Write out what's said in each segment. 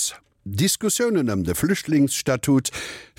Kuerz, Diskussiounen ëm de Flüchtlingsstatut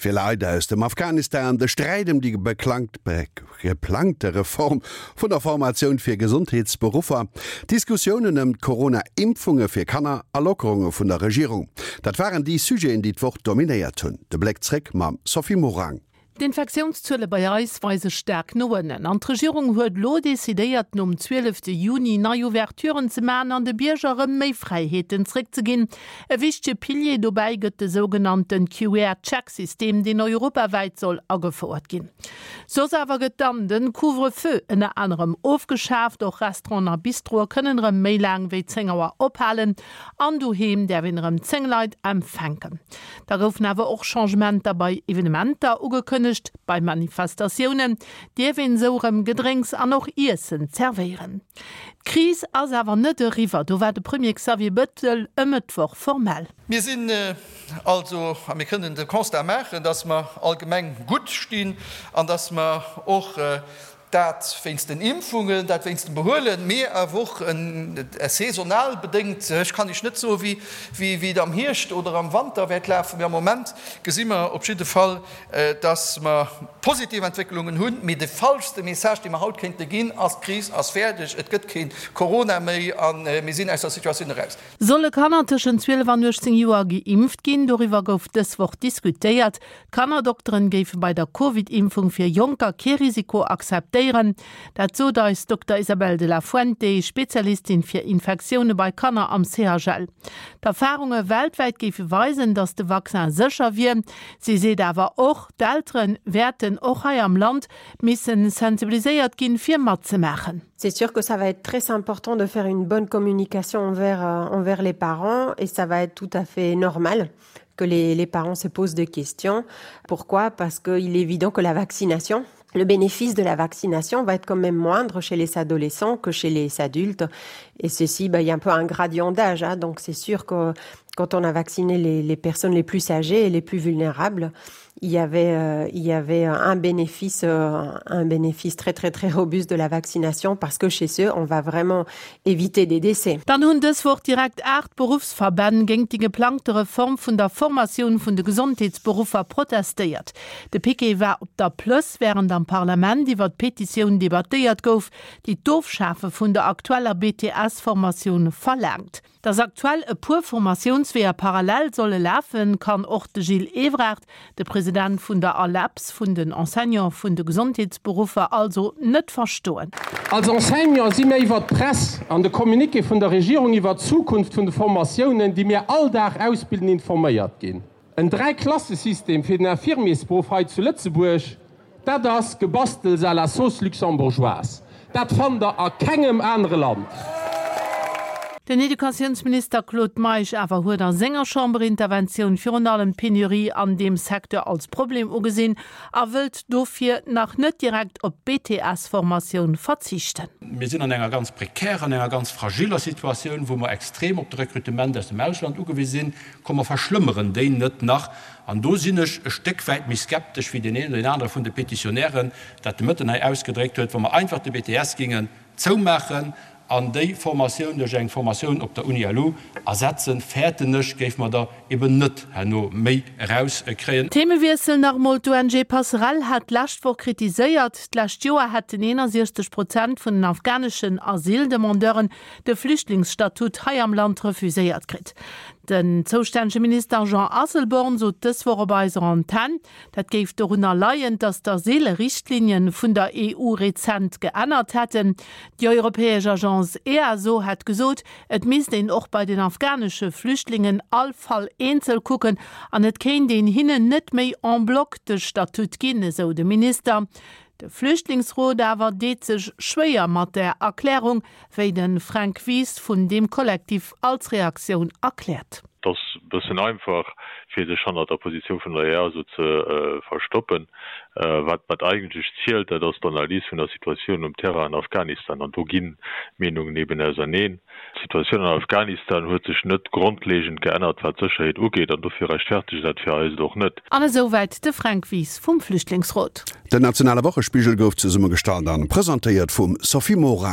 fir Leit aus dem Afghanistan, de Sträit ëm déi geplangte Reform vun der Formatioun fir Gesondheetsberuffer, Diskussiounen ëm d'Corona-Impfunge fir Kanner a Lockerunge vun der Regierung, dat waren déi Sujeten, déi d'Woch dominéiert hunn. De Bléck zréck mam Sophie Morang. D'Infektiounszuele bei eis weise staark no ënnen an d'Regierung huet elo decidéiert, nom 12 Juni nei Ouverturen ze maachen an de Bierger erëm méi Fräiheeten zréckzeginn. E wichtege Pilier dobäi gëtt de sougenannte QR-Check-System, deen europawäit soll agefouert ginn. Soss awer gëtt dann de Couvre-feu ënner anerem ofgeschaaft, och Restauranten a Bistroe kënnen erëm méi laang wéi 10 Auer ophalen an doheem däerf een erëm 10 Leit empfänken. Da goufen awer och Changementer bei Evenementer ugekënnegt. Bei Manifestatiounen dierf een esou erëm Gedrénks an och Iessen zerwéieren. D'Kris ass awer net eriwwer, do war de Premier Xavier Bettel e Mëttwoch formell. Mir sinn also, a mir kënnen de Constat maachen, dass mer allgemeng gutt stinn an dass mer och Dat wéinst den Impfungen, dat wéinst dem Behuelen, mee awer och saisonal bedéngt. Ech kann Iech net soen, wéi et am Hierscht oder am Wanter wäert lafen, mee am Moment gesi mer op jidde Fall, dass mer positiv Entwécklungen hunn. Mee de falschste Message, dee mer haut kéinte ginn, ass, D'Kris ass fäerdeg, et gëtt kee Corona méi a mir sinn aus der Situatioun eraus. Solle Kanner tëschent 12 an 18 Joer geimpft ginn? Doriwwer gouf dës Woch diskutéiert. D'Kannerdokteren géife bei der Covid-Impfung fir Jonker kee Risiko akzeptéieren. Dat sot eis Dokter Isabel de la Fuente, Spezialistin fir Infektioune bei Kanner am CHL. D'Erfarunge weltwäit géife weisen, datt de Vaccin sécher wier. Si seet awer och, d'Eltere wäerten och hei am Land missen sensibiliséiert ginn, fir matzemaachen. C'est sûr que ça va être très important de faire une bonne communication envers, euh, envers les parents et ça va être tout à fait normal que les, les parents se posent des questions. Pourquoi Parce qu'il est évident que la vaccination, le bénéfice de la vaccination va être quand même moindre chez les adolescents que chez les adultes. Et ceci, bah, il y a un peu un gradient d'âge. Donc c'est sûr que quand on a vacciné les, les personnes les plus âgées et les plus vulnérables, il y avait, euh, il y avait un bénéfice, euh, un bénéfice très très très robuste de la vaccination parce que chez eux, on va vraiment éviter des décès. Dann hunn dës Woch direkt 8 Beruffsverbänn géingt déi geplangte Reform vun der Formatioun vun de Gesondheetsberuffer protestéiert. De Piquet war op der Plëss, wärend am Parlament iwwer d'Petitioun debattéiert gouf, déi d'Ofschafe vun der aktueller BTS-Formatioun verlaangt. Datt aktuell e puer Formatiounsweeër parallel solle lafen, kann och de Gilles Evrard, de President vun der ALEPS, vun den Enseignante vun de Gesondheetsberuffer, also net verstoen. Als Enseignant si mir iwwert d'Press an de Communiqué vun der Regierung iwwert d'Zukunft vun de Formatiounen, déi mir all Dag ausbilden, informéiert ginn. En Dräiklassesystem fir den Infirmiersberuff hei zu Lëtzebuerg, dat ass Gebastels à la sauce luxembourgeoise. Dat fannt der a kengem anere Land. Den Educatiounsminister Claude Meisch awer huet a senger Chamberinterventioun virun allem d'Penurie an deem Secteur als Problem ugesinn a wëllt dofir nach net direkt op d'BTS-Formatioun verzichten. Mir sinn an enger ganz prekärer, an enger ganz fragiller Situatioun, wou mer extrem op de Rekrutement aus dem Ausland ugewise sinn. Komm mer verschlëmmeren déi net nach. An do sinn ech e Stéck wäit méi skeptesch wéi deen een oder deen anere vun de Petitionnairen dat de Mëtten hei ausgedréckt huet, wa mer einfach de BTS gingen zoumaachen an déi Formatioun duerch eng Formatioun op der Uni LU ersetzen, fäerten ech, géife mer der eben net herno méi erauskréien. Themewiessel nach emol, D'ONG Passerell hat d'lescht Woch kritiséiert, d'lescht Joer hätten 61 Prozent vun den afghaneschen Asyldemandeuren de Flüchtlingsstatut hei am Land refuséiert kritt. Den zoustännege Minister Jean Asselborn sot dës Woch op eiser Antenn, dat géif dorunner leien, datt d'Asylrichtlinien vun der EU rezent geännert hätten. Déi europäesch Agence EASO hätt gesot, et misst een och bei den afghanesche Flüchtlingen all Fall eenzel kucken an et kéint een hinnen net méi en bloc de Statut ginn, esou de Minister. De Flüchtlingsrot awer deet sech schwéier mat där Erklärung, wéi de Fränk Wies vun deem Kollektiv als Reaktioun erkläert. Et ass e bëssen einfach, fir sech hannert der Positioun vun der EASO ze verstoppen. Wat wat eigentlech zielt, dat ass d'Analys vun der Situatioun um Terrain an Afghanistan. An do ginn d'Meenungen eben auserneen. D'Situatioun an Afghanistan huet sech net grondlegend geännert, wat d'Sécherheet ugeet, an dofir rechtfertegt dat fir eis et och net. An esou wäit de Fränk Wies vum Flüchtlingsrot. Den nationale Wochespigel gouf zesummegestallt an presentéiert vum Sophie Morang.